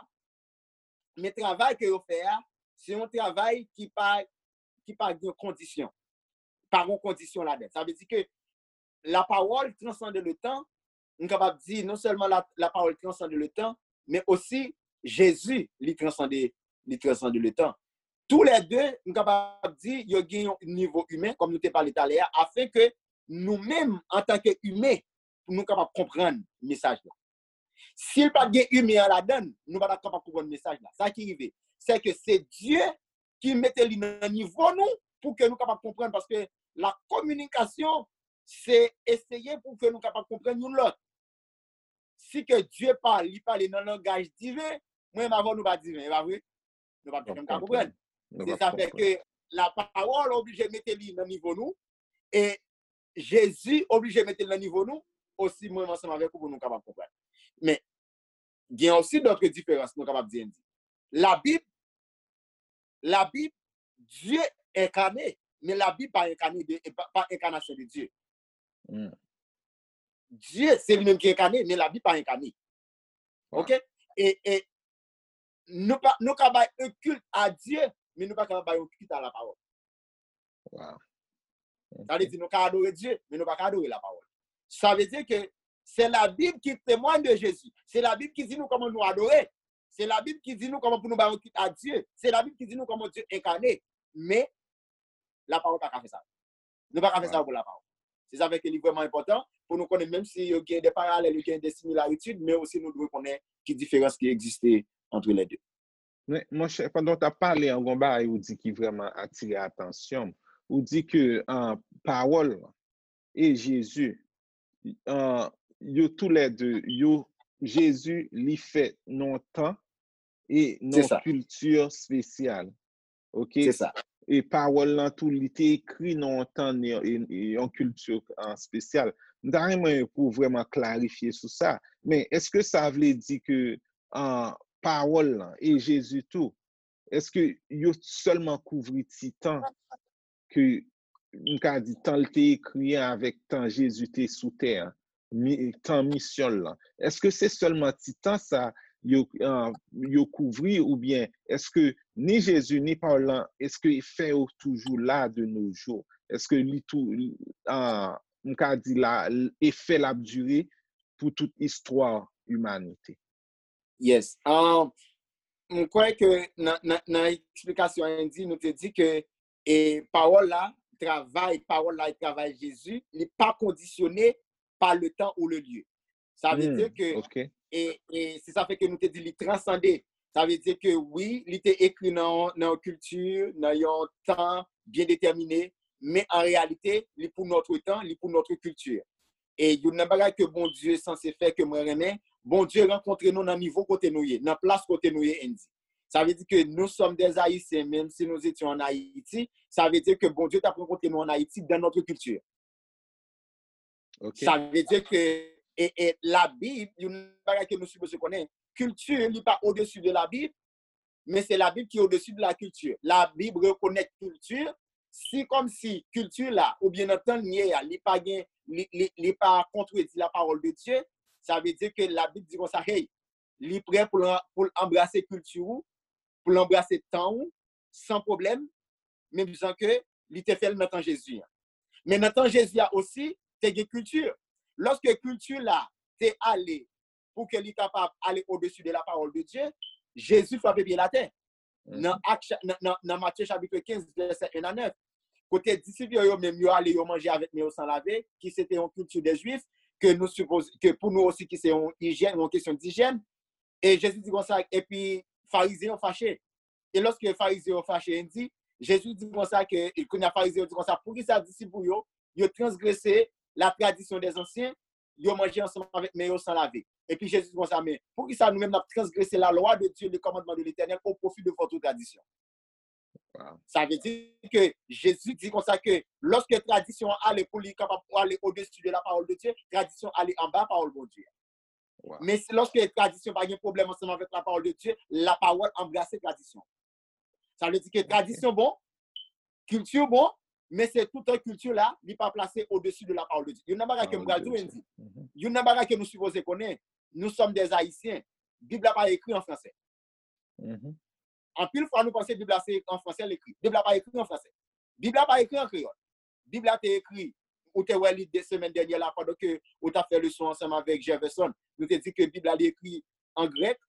men travay ke yo fè a, se yon travay ki pa, ki pa gen kondisyon. Pa gen kondisyon ladan. Sa vle di ke lapawòl transande le tan, m kapab di non sèlman la, lapawòl transande le tan, men osi Jezi, li transande, li transande le tan. Tou lè de, m kapab di, yo gen yon nivo imen, kòm nou te pale talè a, afen ke nou menm, antanke imen, pou nou kapab konprann mesaj la. Si l pa t gen imen an ladan l, nou pa t ap kapab konprann mesaj la. Sa ki rive, se ke se Dye ki mete li nan nivo nou pou ke nou kapab konprann, paske la kominikasyon, se eseye pou ke nou kapab konprann youn lòt. Si ke Dye pa, li pale nan langaj diven, mwen menm avè w nou pa diven, e pa vre? Nou p ap janm ka konprann. Se sa fè ke lapawòl oblije mete li nan nivo nou, e Jezi oblije mete l nan nivo nou, osi mwen menm ansanm avèk ou pou nou kapab konprann. Men, gen osi dòt diferans nou kapab di, di. Labib, Labib, Dye enkane, men Labib pa enkane de, pa, pa enkanasyon de Dye. Dye, se li menm ki enkane, men Labib pa enkane. Oke? E, e nou pa, nou ka bay un culte à Dieu, men nou pa ka bay un culte à la parole. Sa vle di nou ka adore Dye, men nou pa ka adore lapawòl. Sa vle di ke se Labib ki temwany de Jezi. Se Labib ki di nou kòman nou adore. Se Labib ki di nou kòman pou nou bay yon culte à Dieu. Se Labib ki di nou kòman Dye enkane. Men, lapawòl pa ka fè sa. Nou pa ka fè sa pou lapawòl. Se sa fè ke li vrèman enpòtan pou nou konnen, menm si yo gen de paralèl, yo gen de similaritid, men osi nou dwe konnen ki diferans ki egziste antre lè de. Men, monchè, pandan w t ap pale an, gon bagay ou di ki vrèman atire atansyon m. Ou di ke, ah, pawòl e Jezi, ah, yo toulède, yo, Jezi, li fèt nan yon tan e nan yon kilti espesyal. Oke? E pawòl lan tou, li te ekri nan yon tan, e, e yon kilti, ah, espesyal. M ta renmen pou w vrèman klarifye sou sa. Men, èske sa vle di ke, ah, pawòl lan e Jezi tou, èske yo sèlman kouvri ti tan ke, m ka di, tan l te ekri an avèk tan Jezi te sou tè an? mi- tan misyon l lan? Èske se sèlman ti tan sa yo, ah, yo kouvri, oubyen èske ni Jezi ni pawòl lan, èske fè yo toujou la de nos jours? Èske li tou, ah, m ka di la, efè l ap dire pou tout istwa imanite? Yes. Um, m kwè ke nan, nan, nan eksplikasyon Andy, nou te di ke e pawòl la, travay, pawòl la e travay Jezi, li pa kondisyone pa le tan ou le lye. Sa vle Hmm, di ke, ok. e, e se sa fè ke nou te di li transande. Sa vle di ke wi, li te ekri nan, nan yon kilti, nan yon tan byen detèmine, men an reyalite, li pou notre temps, li pou notre culture. E youn nan bagay ke Bondye sanse fè ke mwen renmen, Bondye rankontre nou nan nivo kote nou ye, nan plas kote nou ye, Andy. Sa vle di ke nous sommes des Haïtiens, même si nous étions en Haïti, sa vle di ke Bondye t ap rankontre nou an Ayiti dans notre culture. Ok. Sa vle di ke e, e, Labib, youn bagay ke nou sipoze konnen, kilti li pa odesi de Labib, men se Labib ki odesi de la kilti. Labib rekonèt kilti, si kòmsi kilti la, oubyen nan tan l ye a, li pa gen, li, li, li pa kontredi la pawòl de Dye, sa vle di ke Labib di konsa, hey, li prè pou l, pou l anbrase kilti ou, pou l anbrase tan ou, san pwoblèm, menm jan ke li te fè l nan tan Jezi an. Men nan tan Jezi a osi, te gen kilti. Lòske kilti la te ale pou ke li kapab ale odesi de la pawòl de Dye, Jezi frape pye l atè. Nan, Ak cha- nan, nan, nan Matye chapit kenz, vèsè en a nèf, kote disip yo, yo menm, yo ale, yo manje avèk men yo san lave, ki se te yon kilti de Jwif, ke nou sipoze, ke pou nou osi, ki se yon ijyèn, yon kesyon dijyèn. E Jezi di konsa, epi Farizyen yo fache. E lòske Farizyen yo fache, Andy, Jezi di konsa ke, e kounye a Farizyen yo di konsa, poukisa disip ou yo, yo transgrese la tradition des anciens, yo manje ansanm avèk men yo san lave? Epi Jezi di konsa, men poukisa nou menm n ap transgrese la loi de Dieu, le commandement de l'Éternel au profit de votre tradition? Wow. Sa vle di ke Jezi di konsa ke lòske tradisyon an ale pou li kapab ale odesi de la parole de Dieu, tradisyon ale anba pawòl Bondye. Wow. Men si lòske tradisyon pa gen pwoblèm ansanm avèk la parole de Dieu, la parole anbrase tradisyon. Sa vle di ke tradisyon bon, kilti bon, men se toutan kilti la, li pa plase odesi de la parole de Dieu. Youn nan bagay ke m pral di w, Andy, youn nan bagay ke nou sipoze konnen, nous sommes des Haïtiens. Bib la pa ekri an fransè. Mhm. Anpil fwa, nou panse Bib la se an fransè l ekri. Bib la pa ekri an fransè. Bib la pa ekri an kreyòl. Bib la te ekri, ou te wè li de semèn dènyè la, pandan ke ou t ap fè leson ansanm avèk Jefferson. Nou te di ke Bib la, li ekri an grèk,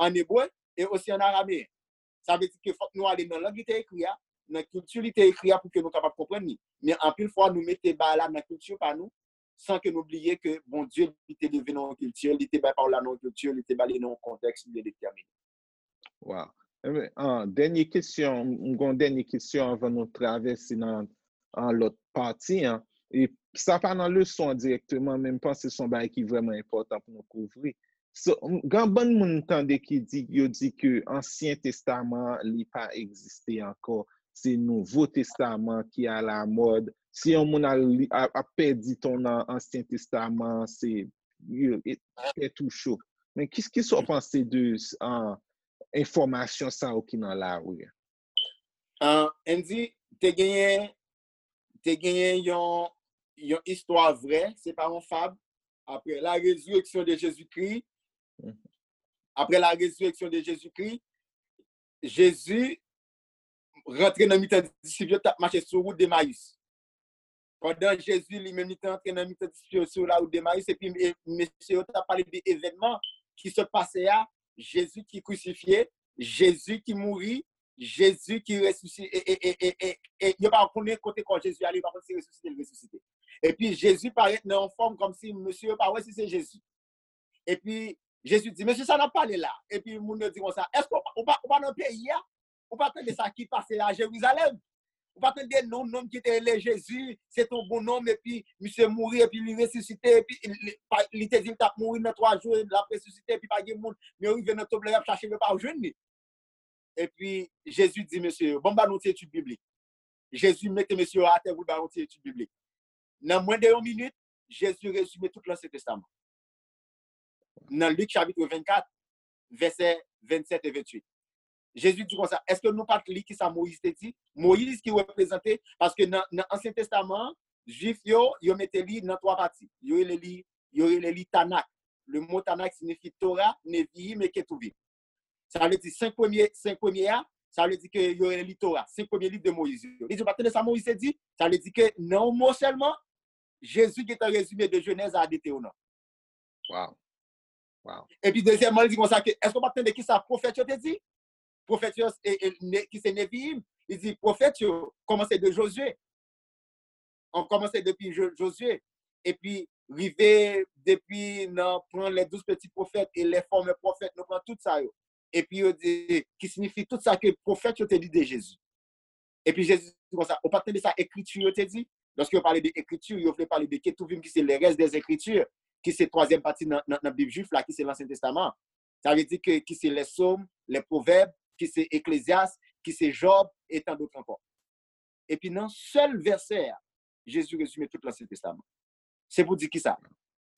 an ebre, e osi an arameyen. Sa vle di ke fòk nou ale nan lang li te ekri a, nan kilti li te ekri a pou ke nou kapab konprann li. Men anpil fwa, nou mete bagay la nan kilti pa nou, san ke nou bliye ke Bondye, li te leve nan yon kilti, li te bay pawòl la nan yon kilti, li te ba li nan yon kontèks byen detèmine. Wow. Enben, ah, dènye kesyon, m gen yon dènye kesyon anvan nou travèse nan, nan lòt pati an. E sa pa nan leson an dirèkteman, men m panse se yon bagay ki vrèman enpòtan pou nou kouvri. So, m- gen bann moun m tande ki di, yo di ke Ansyen Testaman an, li pa egziste ankò. Se Nouvo Testaman ki alamòd. Si yon moun al li- a- ap pèdi tan nan Ansyen Testaman an, se yo- e- tèt ou cho. Men ki, ki sa w panse de, ah, enfòmasyon sa yo ki nan lari a? Ah, Andy, te genyen, te genyen yon, yon istwa vrè, se pa yon fab. Après la résurrection de Jésus-Christ, Mhm. après la résurrection de Jésus-Christ, Jezi rantre nan mitan disip yo, t ap mache sou wout Demayis. Pandan Jezi li menm li te antre nan mitan disip yo sou la wout Demayis, epi e, mesye yo t ap pale de evènman ki sot pase a, Jezi ki krisifye, Jezi ki mouri, Jezi ki resisite, e, e, e, e, e, e yo pa konnen kote kò Jezi ale, yo pa konn si resisite l resisite. Epi Jezi parèt nan yon fòm kòmsi mesye yo pa wè si se Jezi. Epi Jezi di, mesye, sa n ap pale la? Epi moun yo di konsa, èske ou pa, ou pa, ou pa nan peyi a? Ou pa tande sa ki pase a Jerizalèm? Ou pa tande non, nonm ki te rele Jezi, se te yon bon nonm, epi misye mouri, epi li resisite, epi li, li, pa- li te di l t ap mouri nan twa jou, l ap resisite, epi pa gen moun, men yo rive nan tonb la, y ap chache l, yo pa jwenn li. Epi Jezi di mesye yo, bon, m ba nou ti etid biblik. Jezi mete mesye yo atè pou l ba yo ti etid biblik. Nan mwens de yon minit, Jezi rezime tout Lansyen Testaman. Nan Lik chapit vennkat, vèsè vennsèt e venntuit. Jezi di konsa, èske nou pa t li ki sa Moyiz te di? Moyiz ki reprezante, paske nan, nan Ansyen Testaman an, Jwif yo, yo mete li nan twa pati. Yo rele li yo rele li Tanak. Le mo Tanak siyifi Tora, Nevi'im e Ketuvim. Sa vle di senk premye, senk premye a, sa vle di ke yo rele li Tora, senk premye liv de Moyiz yo. Li di, ou pa tande sa Moyiz te di? Sa vle di ke nan yon mo sèlman, Jezi gentan rezime de Jenèz a Detewonòm. Wow. Wow. Epi dezyèmman, li di konsa ke, èske w pa tande kisa pwofèt yo te di? Pwofèt yo, e, e, ne, ki se Nevi'im, li di pwofèt yo kòmanse de Jozye. An kòmanse depi Jo- Jozye. Epi rive depi nan pran les douze petits prophètes et les former prophètes, nou pran tout sa yo. Epi yo di, ki siyifi tout sa ke pwofèt yo te di de Jezi. Epi Jezi di konsa, ou pa tande sa ekriti yo te di? Lòske yo pale de ekriti, yo vle pale de Ketuvim ki se les restes des écritures, ki se twazyèm pati nan, nan, nan Bib jwif la, ki se Lansyen Testaman. Sa vle di ke ki se les Psaumes, les Proverbes, ki se Eklezyas, ki se Jòb, e tan dòt ankò. Epi nan sèl vèsè a, Jezi rezime tout Lansyen Testaman. Se pou di kisa?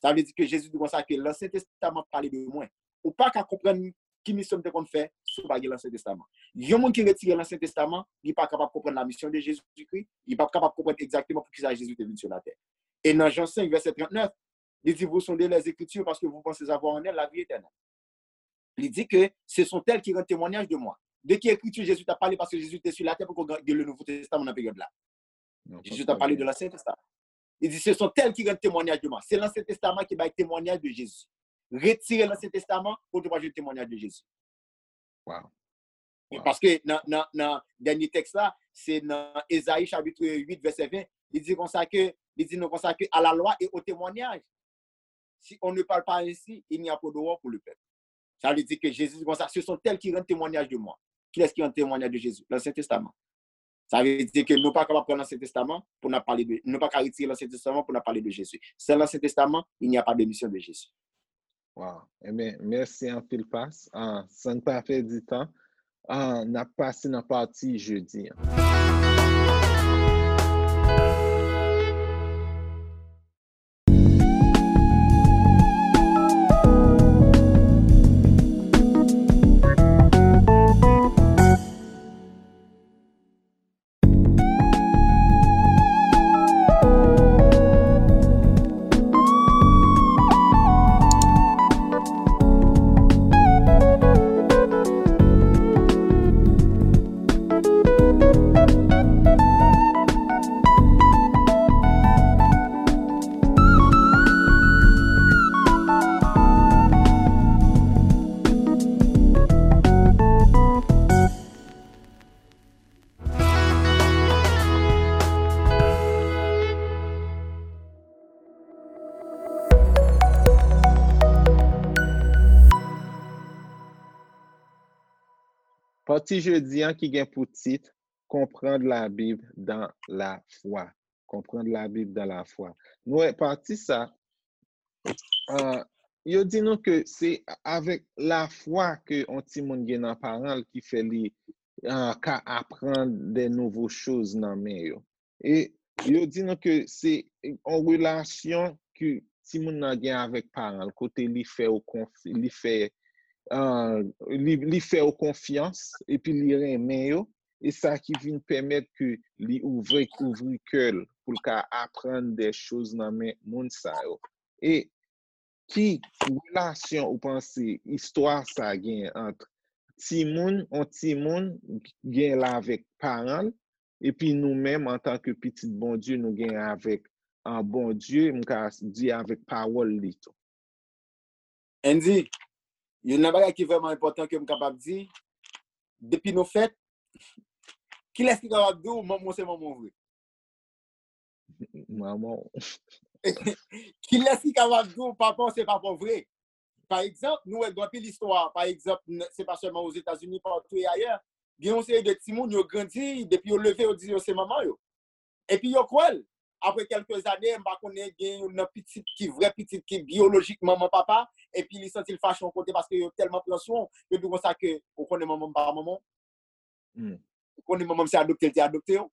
Sa vle di ke Jezi di konsa ke Lansyen Testaman pale de mwen. Ou pa ka konprann ki misyon m te konn fè si w pa gen Lansyen Testaman. Yon moun ki retire Lansyen Testaman, li pa kapab konprann la mission de Jésus-Christ, li pa kapab konprann egzakteman poukisa Jezi te vin sou latè. E nan Jan senk, vèsè trannèf, li di, vous sondez les Écritures parce que vous pensez avoir en elles la vie éternelle. Li di ke ce sont elles qui rendent témoignage de moi. De ki ekriti Jezi t ap pale paske Jezi te sou latè poko gen le Nouveau Testament nan peryòd la? Jezi t ap pale de Lansyen Testaman. Li di, ce sont elles qui rendent témoignage de moi. Se Lansyen Testaman ki bay temwanyaj de Jezi. Retire Lansyen Testaman, pou nou pa jwenn temwanyaj de Jezi. Wow. Paske nan, nan, nan dènye tèks la, se nan Ezayi chapit uit, vèsè ven, li di konsa ke, li di nou konsa ke à la loi et au témoignage. Si on ne parle pas ainsi, il n'y a point d'aurore pour le peuple. Sa vle di ke Jezi di konsa, ce sont elles qui rendent témoignage de moi. Kilès ki rann temwanyaj de Jezi? Lansyen Testaman. Sa vle di ke nou pa kapab pran Lansyen Testaman pou n ap pale de, nou pa ka retire Lansyen Testaman pou n ap pale de Jezi. Sans Lansyen Testaman, il n'y a pas de mission de Jésus. Wow. Ebyen, mèsi anpil, Pas. Ah, san n pa pèdi tan, ah, n ap pase nan pati jedi an. Pati jedi an ki gen pou tit Comprendre la Bible dans la foi. Comprendre la Bible dans la foi. Nou wè pati sa, ah, yo di nou ke se avèk lafwa ke yon timoun gen nan paran l ki fè li, ah, ka aprann de nouvo choz nan men yo. E yo di nou ke se yon relasyon ke timoun nan gen avèk paran l, kote li fè yo konf, li fè, ah, li, li fè yo konfyans, epi li renmen yo, e sa ki vin pèmèt ke li ouvri, ouvri kè l pou l ka aprann de choz nan men moun sa yo. E ki relasyon ou panse istwa sa gen ant timoun, yon timoun gen l avèk paran l, epi nou menm antanke pitit Bondye nou gen avèk, ah, Bondye, m ka di avèk pawòl li tou? Andy, youn nan bagay ki vrèman enpòtan ke m kapab di, depi nou fèt, kilès ki kapab di w manman w se manman w vre? Manman w. Kilès ki kapab di w papa w se papa w vre? Pa egzanp, nou wè gen anpil istwa, pa egzanp, se pa sèlman Ozetazini, patou e ayè, gen yon seri de timoun yo grandi, depi yo leve, yo di yo se manman yo. Epi yo kwè l. Apre kèlke zane, m pa konnen, gen youn nan pitit ki vrè pitit ki biyolojik manman papa, epi li santi l fache yon kote paske yo tèlman pran swen w, yo di w konsa ke, ou konnen manman m pa manman w? Ou konnen manman m se adopte l te adopte w?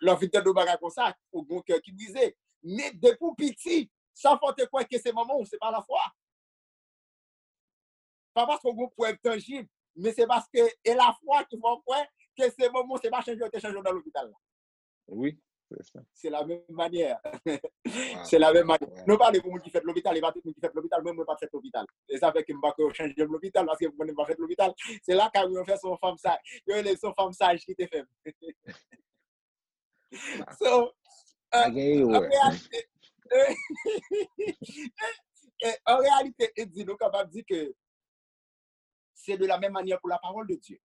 Lè w fin tande yon bagay konsa, ou gen yon kè ki brize. Men depi w piti, sa fè w te kwè ke se manman w, se pa lafwa. Pa paske w gen yon prèv tanjib, men se paske e lafwa ki fè w kwè ke se manman w, se pa chanje yo te chanje w nan lopital la. Wi. Se la menm manyè. Se la menm manyè. Nou pale pou moun ki fèt lopital, e pa tout moun ki fèt lopital, mwen, mwen pa t fèt lopital. E sa fè ke m pa kwè yo chanje m lopital, paske m konnen m pa fèt lopital. Se lakay mwen, yo fè se yon fanm saj. Yo rele l se yon fanm saj ki te fè m. So, euh, an reyalite, an reyalite, Andy, nou kapab di ke c'est de la même manière pour la parole de Dieu.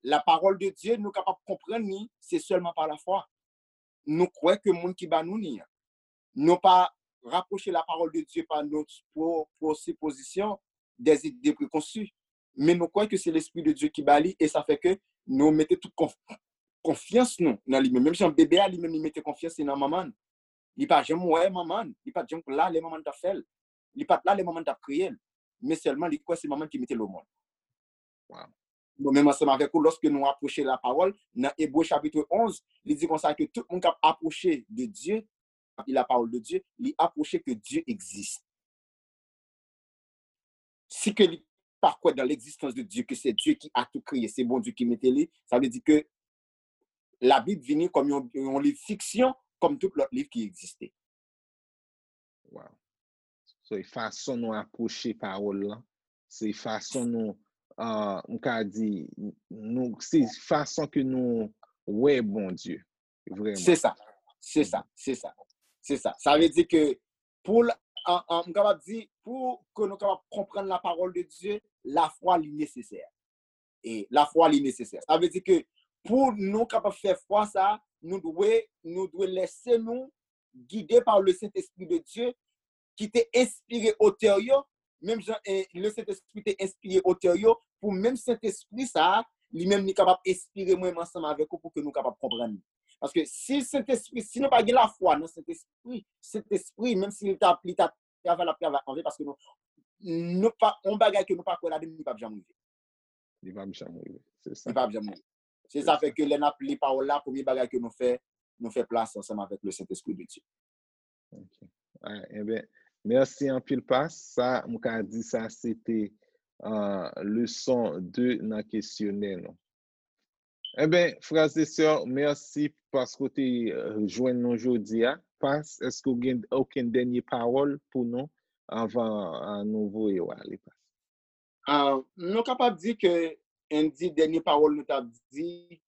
La parole de Dieu, nou kapab konprann li, se sèlman pa lafwa. Nou kwè ke moun ki ba nou li an. Nou pa rapwoche la parole de Dieu pa nou pwo- presupposition, des idées préconçues. Men nou kwè ke se Lespri de Dye ki ba li, e sa fè ke nou mete tout konf- konfyans nou nan li menm. Menm jan bebe a, li menm, li mete konfyans li nan manman l. Li pa janm wè manman l. Li pa t janm la lè manman l t ap fè l. Li pa t la lè manman l t ap kreye l. Men sèlman, li kwè se manman l ki mete l o mond. Bon, menm ansanm avèk ou, lòske nou apwoche lapawòl, nan Ebre chapit onz, li di konsa ke tout moun k ap apwoche de Dye, li lapawòl de Dye, li apwoche ke Dye egziste. Si ke li pa kwè dans l'existence de Dieu, que c'est Dieu qui a tout créé, se Bondye ki mete li, sa vle di ke Labib vini kòm yon, yon liv fiksyon, kòm tout lòt liv ki egziste. Wow. So, e fason nou apwoche pawòl lan, se fason nou, uh, m ka di, nou, se fason ke nou wè Bondye, vreman. Se sa, se sa, se sa, se sa. Sa vle di ke pou, m kapab di, pou ke nou kapab konprann lapawòl de Dye, lafwa li nesesè. E lafwa li nesesè. Sa vle di ke pou nou kapab fè fwa sa, nou dwe, nou dwe lèse nou gide pa le Saint-Esprit de Dieu ki te enspire otè yo, menm jan eh, le Saint-Esprit te enspire otè yo, pou menm Saint-Esprit sa, li menm li kapab enspire mwen ansanm avèk ou pou ke nou kapab konprann li. Paske si Saint-Esprit, si nou pa gen lafwa nan Saint-Esprit, Saint-Esprit, menm si li ta, li ta travay, l ap travay anven, paske nou, nou pa, yon bagay ke nou pa kwè ladan, li p ap janm rive. Li p ap janm rive. Se sa. Li p ap janm rive. Se sa fè ke lè n ap li pawòl la, premye bagay ke nou fè, nou fè plas ansanm avèk le Saint-Esprit de Dieu. Ok. Ah, enben, mèsi anpil, Pas. Sa, m ka di sa, se te uh, leson de nan kesyonè nou. Enben, frè e sè, mèsi paske w te uh, jwenn nou jodi a. Pas, èske w gen okenn dènye pawòl pou nou anvan uh, nou voye w ale, Pas? Uh, nou kapab di ke Andy, dènye pawòl nou t ap di,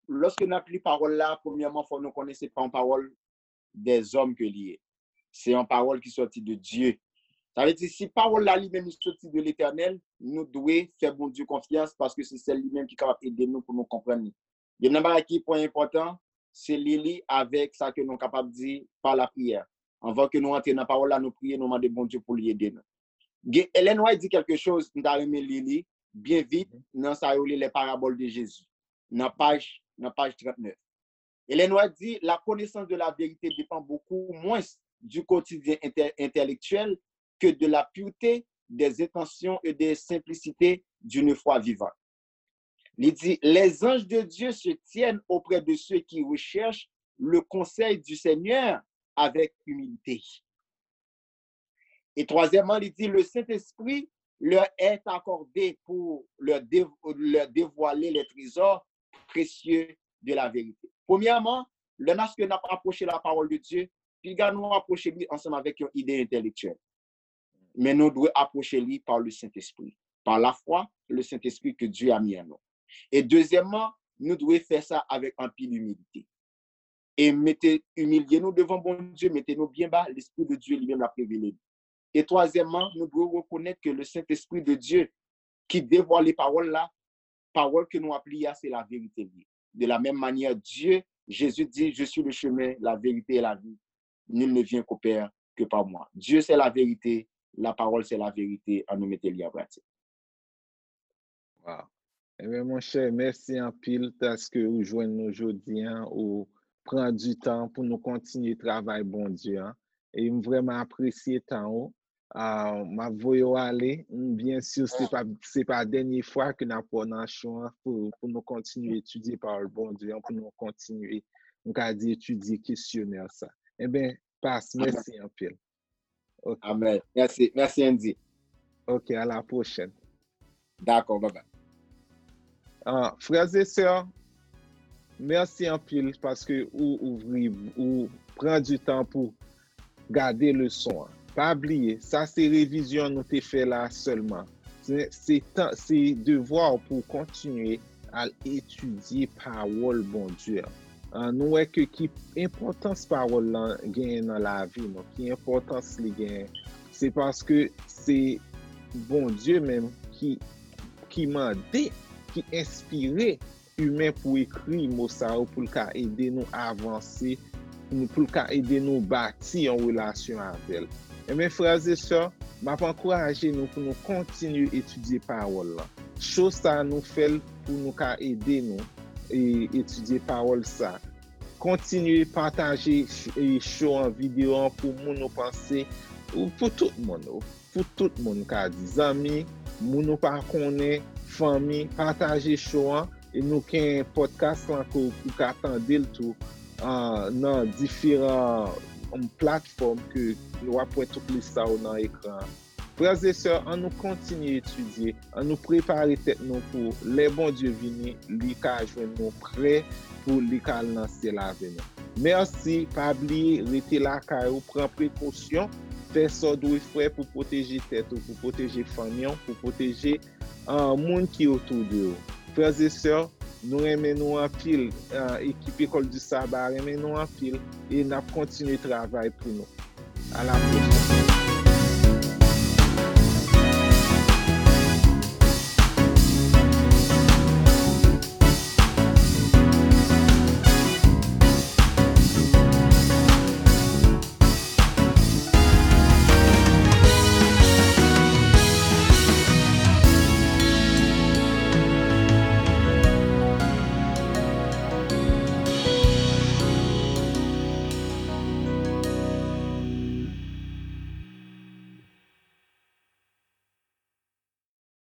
lòske n ap li pawòl la, premyèman, fò nou konnen se pa yon pawòl dèzòm ke li ye. Se yon pawòl ki sòti de Dye. Sa vle di, si pawòl la li menm li sòti de Letènèl, nou dwe fè Bondye konfyans paske se sèl li menm ki kapab ede nou pou nou konprann li. Youn nan bagay ki pwen enpòtan, se li li avèk sa ke nou kapab di pa lapriyè. Anvan ke nou antre nan pawòl la, nou priye, nou mande Bondye pou li ede nou. Ellen White di kèlke choz, m ta renmen li li byen vit nan sa yo rele les paraboles de Jésus, nan paj, nan paj trannèf. Ellen White di, la connaissance de la vérité dépend beaucoup moins du quotidien intellectuel que de la pureté des intentions et de simplicité d'une foi vivante. Li di, les anges de Dieu se tiennent auprès de ceux qui recherchent le conseil du Seigneur avec humilité. Et troisièmement, il dit, le Saint-Esprit leur est accordé pour leur, dé, leur dévoiler les trésors précieux de la vérité. Premyèman, lè n ap apwoche la parole de Dieu, piga nou apwoche li ansanm avèk yon ide entèlektyèl. Men nou dwe apwoche li par le Saint-Esprit, par la foi, le Saint-Esprit que Dieu a mis en nous. E dezyèmman, nou dwe fè sa avèk anpil imilite. E mete, imilye nou devan Bondye, mete nou byen ba, Lespri de Dye li menm l ap revele nou. E twazyèmman, nou dwe rekonèt ke le Saint-Esprit de Dieu ki devwale pawòl la, pawòl ke nou ap li a, se laverite li ye. De la même manière, Dieu, Jésus dit, je suis le chemin, la vérité et la vie. Nul ne vient qu'au Père que par moi. Dieu, c'est la vérité, la parole, c'est la vérité. Ann nou mete li an pratik. Wow. Ebyen, monchè, mèsi anpil paske ou jwenn nou jodi a, ou pran di tan pou nou kontinye travay Bondye a. E m vrèman apresye tan ou. Uh, m ap voye w ale. M byen si se pa, se pa dènye fwa ke n ap wè w nan chou an pou, pou nou kontinye etidye pawòl Bondye an, pou nou kontinye, m ka di, etidye kesyonè sa. Ebyen, Pas, mèsi anpil. Okay. Amen. Merci. Merci, Andy. Ok, à la prochaine. D'accord, bye bye. Uh, frères et sœurs, Mèsi anpil paske ou ouvri, ou pran di tan pou gade leson an. Pa bliye, sa se revizyon nou te fè la sèlman. Se, se tan, se devwa w pou w kontinye al etidye pawòl Bondye an. Ah, nou wè ke ki enpòtans pawòl lan genyen nan lavi nou, ki enpòtans li genyen. Se paske se Bondye menm ki, ki mande, ki enspire imen pou ekri mo sa yo, pou l ka ede nou avanse, pou l ka ede nou bati yon relasyon avè l. Enben, frè e sè, m ap ankouraje nou pou nou kontinye etidye pawòl lan. Cho sa nou fè l pou nou ka ede nou e etidye pawòl sa. Kontinye pataje ch-, e show an, videyo an pou moun ou panse, ou pou tout moun, ou pou tout moun, ka di zanmi, moun ou pa konnen, fanmi, pataje show an, e nou gen podcast lan ke ou ka tande l tou, ah, nan diferan, um, platfòm ke nou ap wè tout lis sa yo nan ekran an. Frè e sè, ann nou kontinye etidye, ann nou prepare tèt nou pou lè Bondye vini, li ka jwenn nou prè pou li ka al nan syèl avè nou. Mèsi, pa bliye, rete lakay ou, pran prekosyon, fè sa w dwe fè pou pwoteje tèt ou, pou pwoteje fanmi w, pou pwoteje, ah, moun ki otou de ou. Frè e sè, nou renmen nou anpil, ah, ekip École du Sabbat renmen nou anpil, e n ap kontinye travay pou nou. A la pwochèn.